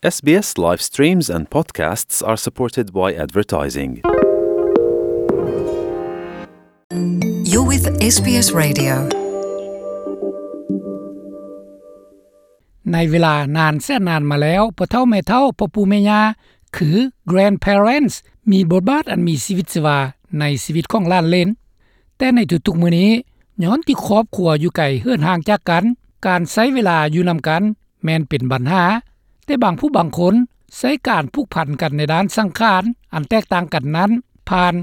SBS live streams and podcasts are supported by advertising. You're with SBS Radio. ໃນເວລານານແສນນານມາແລ້ວ, ພໍ່ເຖົ້າແມ່ເຖົ້າ, ພໍ່ປູ່ແມ່ຍ່າ ຄື grandparents ມີບົດບາດອັນມີຊີວິດຊີວາໃນຊີວິດຂອງຫຼານເຫຼນ. ແຕ່ໃນທຸກໆມື້ນີ້, ຍ້ອນທີ່ຄອບຄົວຢູ່ໄກເຫີນຫ່າງຈາກກັນ, ການໃຊ້ເວລາຢູ່ນຳກັນແມ່ນເປັນບັນຫາ. ແຕ່ບາງຜູ້ບາງຄົນໃຊ້ການຜູກພັນກັນໃນດ້ານສັງຂານອັນແຕກຕ່າງກັນນັ້ນ ຜ່ານ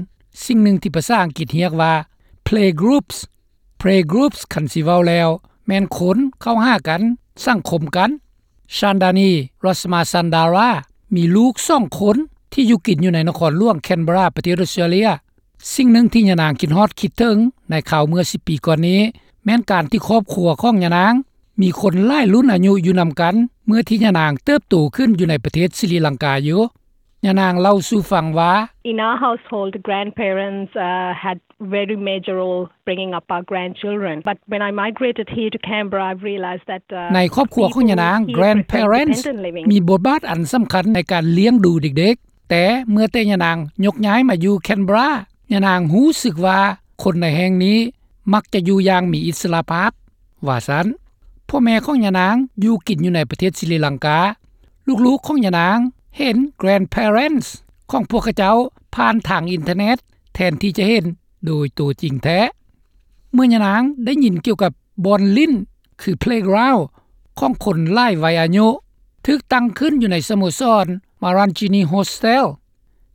ສິ່ງໜຶ່ງທີ່ພາສາອັງກິດຮຽກວ່າ playgroups. Playgroups ຄັນຊິເວົ້າແລ້ວ ແມ່ນຄົນເຂົ້າຫາກັນ, ສັງຄົມກັນ. ຊານດານີ ຣັດສະມາຊັນດາຣາ ມີລູກສອງຄົນທີ່ຢູ່ກິນຢູ່ໃນນະຄອນຫຼວງແຄນເບຣາ ປະເທດອົດສະຕຣາເລຍ. ສິ່ງໜຶ່ງທີ່ຍານາງຄິດຮອດຄິດເຖິງໃນຄາວເມື່ອສິບປີກ່ອນນີ້ ແມ່ນການທີ່ຄອບຄົວຂອງຍານາງມີຄົນຫຼາຍລຸ້ນອາຍຸຢູ່ນຳກັນ ເມື່ອທີ່ຍານາງເຕີບໂຕຂຶ້ນຢູ່ໃນປະເທດສະຣີລັງກາຢູ່. ຍານາງເລົ່າສູ່ຟັງວ່າ In our household, grandparents, uh, had very major role bringing up our grandchildren. But when I migrated here to Canberra, I've realized that, uh, ໃນຄອບຄົວຂອງຍານາງ, grandparents ມີບົດບາດອັນສຳຄັນໃນການລ້ຽງດູເດັກໆ. ແຕ່ເມື່ອແຕ່ຍານາງຍົກຍ້າຍມາຢູ່ແຄນເບຣາ, ຍານາງຮູ້ສຶກວ່າຄົນໃນແຫ່ງນີ້ມັກຈະຢູ່ຢ່າງມີອິດສະຫຼະພາບ, ວ່າຊັ້ນ. ພໍ່ແມ່ຂອງຍານາງຢູ່ກິນຢູ່ໃນປະເທດສະຣີລັງກາ. ລູກໆຂອງຍານາງເຫັນ grandparents ຂອງພວກເຂົາເຈົ້າຜ່ານທາງອິນເຕີເນັດ ແທນທີ່ຈະເຫັນໂດຍໂຕຈິງແທ້. ເມື່ອຍານາງໄດ້ຍິນກ່ຽວກັບບ່ອນຫຼິ້ນ ຄື playground ຂອງຄົນຫຼາຍໄວອາຍຸ ຖືກຕັ້ງຂຶ້ນຢູ່ໃນສະໂມສອນ Marangini Hostel,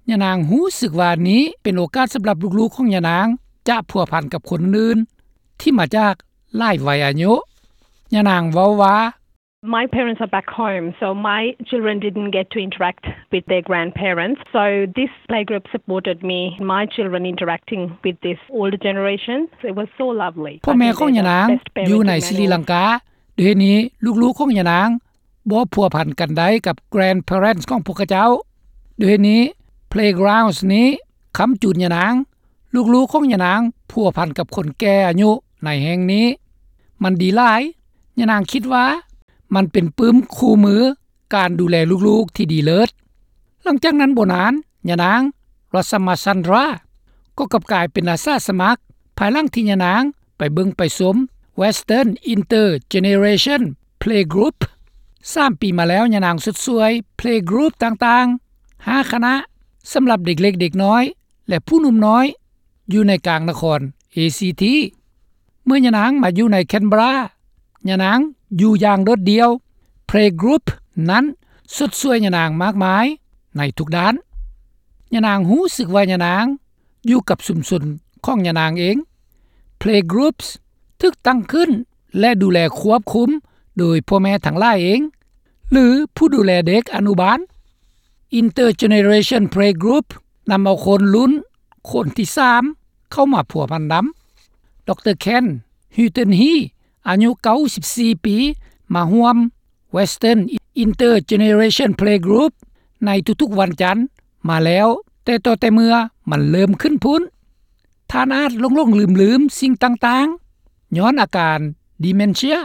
ຍານາງຮູ້ສຶກວ່ານີ້ເປັນໂອກາດສຳລັບລູກໆຂອງຍານາງຈະພົວພັນກັບຄົນອື່ນທີ່ມາຈາກຫຼາຍໄວອາຍຸ. ຍານາງເວົ້າວ່າ My parents are back home, so my children didn't get to interact with their grandparents. So this playgroup supported me, my children interacting with this older generation. It was so lovely. ພໍ່ແມ່ຂອງຍານາງຢູ່ໃນສະຣີລັງກາ, ດ້ວຍເຫດນີ້ລູກໆຂອງຍານາງບໍ່ພົວພັນກັນໄດ້ກັບ grandparents ຂອງພວກເຂົາເຈົ້າ. ດ້ວຍເຫດນີ້ playgrounds ນີ້ຄ້ຳຈູນຍານາງ. ລູກໆຂອງຍານາງພົວພັນກັບຄົນແກ່ອາຍຸໃນແຫ່ງນີ້. ມັນດີຫຼາຍ. ຍານາງຄິດວ່າມັນເປັນປຶ້ມຄູ່ມື ການດູແລລູກໆທີ່ດີເລີດ. ຫຼັງຈາກນັ້ນບໍ່ນານ, ຍານາງ ຣັດສະມາຊັນດຣາ ກໍກັບກາຍເປັນອາສາສະໝັກ ພາຍຫຼັງທີ່ຍານາງໄປເບິ່ງໄປຊົມ Western Intergeneration Playgroup. ສາມປີມາແລ້ວ, ຍານາງຊົດຊ່ວຍ Playgroup ຕ່າງໆ ຫ້າຄະນະ ສຳລັບເດັກເລັກເດັກນ້ອຍ ແລະ ຜູ້ໜຸ່ມນ້ອຍ ຢູ່ໃນກາງນະຄອນ ເອຊີທີ. ເມື່ອຍານາງມາຢູ່ໃນແຄນເບຣາ, ຍານາງຢູ່ຢ່າງໂດດດ່ຽວ. Playgroup ນັ້ນຊົດຊ່ວຍຍານາງມາກມາຍໃນທຸກດ້ານ. ຍານາງຮູ້ສຶກວ່າຍານາງຢູ່ກັບຊຸມຊົນຂອງຍານາງເອງ. Playgroups ຖືກຕັ້ງຂຶ້ນ ແລະ ດູແລຄວບຄຸມໂດຍພໍ່ແມ່ທັງຫຼາຍເອງ ຫຼື ຜູ້ດູແລເດັກອະນຸບານ. Intergeneration Playgroup ນຳເອົາຄົນລຸ້ນຄົນທີສາມເຂົ້າມາພົວພັນນຳ. ດຣ. Ken Hilton-Hea ອາຍຸເກົ້າສິບສີ່ປີ ມາຮ່ວມ Western Intergeneration Playgroup ໃນທຸກໆວັນຈັນມາແລ້ວ ແຕ່ຕໍ່ແຕ່ເມື່ອມັນເລີ່ມຂຶ້ນພຸ້ນ. ທ່ານອາດຫຼົງໆລືມໆສິ່ງຕ່າງໆ ຍ້ອນອາການ dementia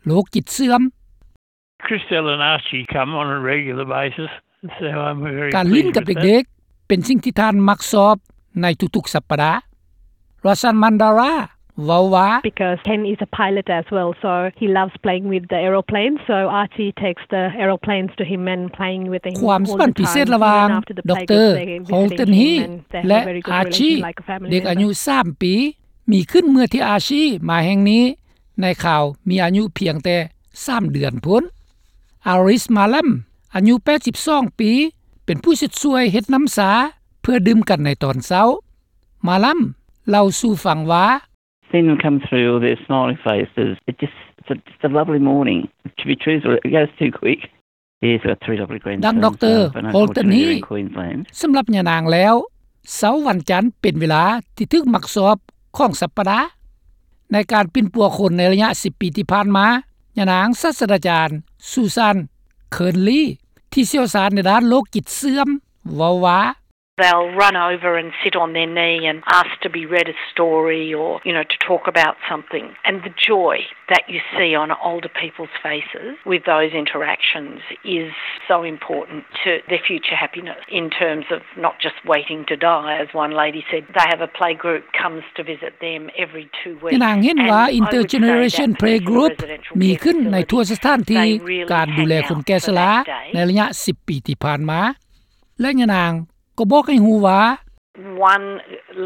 ໂລກຈິດເສື່ອມ. Christelle and Archie come on a regular basis, so I'm very pleased with that. ການຫຼິ້ນກັບເດັກໆ ເປັນສິ່ງທີ່ທ່ານມັກຊອບໃນທຸກໆສັບປະດາ. ຣັດສະມາຊັນດຣາ ເວົ້າວ່າ Because Ken is a pilot as well, so he loves playing with the aeroplane, so Archie takes the aeroplanes to him and playing with him all the time. ຄວາມສຳພັນພິເສດລະຫວ່າງ ດຣ. Hilton-Hea ແລະ Archie ເດັກອາຍຸສາມປີ ມີຂຶ້ນເມື່ອທີ່ Archie ມາແຫ່ງນີ້ ໃນຄາວມີອາຍຸພຽງແຕ່ສາມເດືອນພຸ້ນ. Aris Malam ອາຍຸແປດສິບສອງປີ ເປັນຜູ້ຊົດຊ່ວຍເຮັດນ້ຳຊາເພື່ອດື່ມກັນໃນຕອນເຊົ້າ. Malam ເລົ່າສູ່ຟັງວ່າ Seeing them come through with their smiling faces, it just, it's a, just a lovely morning. To be truthful, it goes too quick. Yes, we've got three lovely grandsons, ດັ່ງ ດຣ. Hilton-Hea. ສຳລັບຍານາງແລ້ວ, ເຊົ້າວັນຈັນເປັນເວລາທີ່ຖືກມັກຊອບຂອງສັບປະດາ. ໃນການປິ່ນປົວຄົນໃນໄລຍະສິບປີທີ່ຜ່ານມາ, ຍານາງສາດສະດາຈານ Susan Kearnley ທີ່ຊ່ຽວຊານໃນດ້ານໂລກຈິດເສື່ອມ ເວົ້າວ່າ They'll run over and sit on their knee and ask to be read a story or, you know, to talk about something. And the joy that you see on older people's faces with those interactions is so important to their future happiness in terms of not just waiting to die, as one lady said. They have a playgroup comes to visit them every two weeks. ຍານາງເຫັນວ່າ Intergeneration Playgroup ມີຂຶ້ນໃນທົ່ວສະຖານທີ່ການດູແລຄົນແກ່ຊະລາໃນໄລຍະສິບປີທີ່ຜ່ານມາ ແລະຍານາງກໍບອກໃຫ້ຮູ້ວ່າ One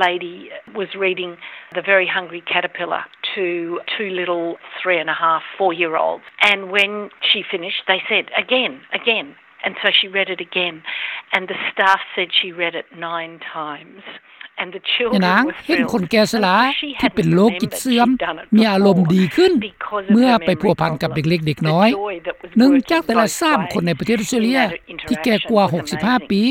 lady was reading The Very Hungry Caterpillar to two little three and a half, four year olds, and when she finished they said, "Again, again." And so she read it again, and the staff said she read it nine times. ຍານາງເຫັນຄົນແກ່ຊະລາທີ່ເປັນໂລກຈິດເສື່ອມມີອາລົມດີຂຶ້ນ ເມື່ອໄປພົວພັນກັບເດັກເລັກເດັກນ້ອຍ. ໜຶ່ງຈາກແຕ່ລະສາມຄົນໃນປະເທດອອສເຕຣເລັຍທີ່ແກ່ກວ່າຫົກສິບຫ້າປີ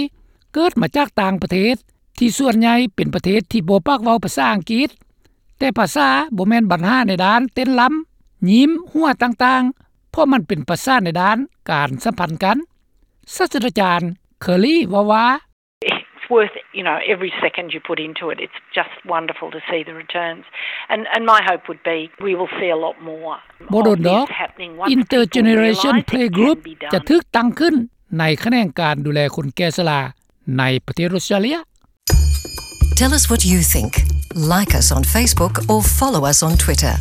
ເກີດມາຈາກຕ່າງປະເທດ ທີ່ສ່ວນໃຫຍ່ເປັນປະເທດທີ່ບໍ່ປາກເວົ້າພາສາອັງກິດ. ແຕ່ພາສາບໍ່ແມ່ນບັນຫາໃນດ້ານເຕັ້ນລຳ, ຍິ້ມ, ຫົວຕ່າງໆ ເພາະມັນເປັນພາສາໃນດ້ານການສຳພັນກັນ. ສາດສະດາຈານ Curley ເວົ້າວ່າ It's worth, you know, every second you put into it. It's just wonderful to see the returns. And, and my hope would be we will see a lot more. ບໍ່ດົນດອກ Intergeneration Playgroup ຈະຖືກຕັ້ງຂຶ້ນໃນຂະແໜງການດູແລຄົນແກ່ຊະລາໃນປະເທດອອສເຕຣເລັຍ. Tell us what you think. Like us on Facebook or follow us on Twitter.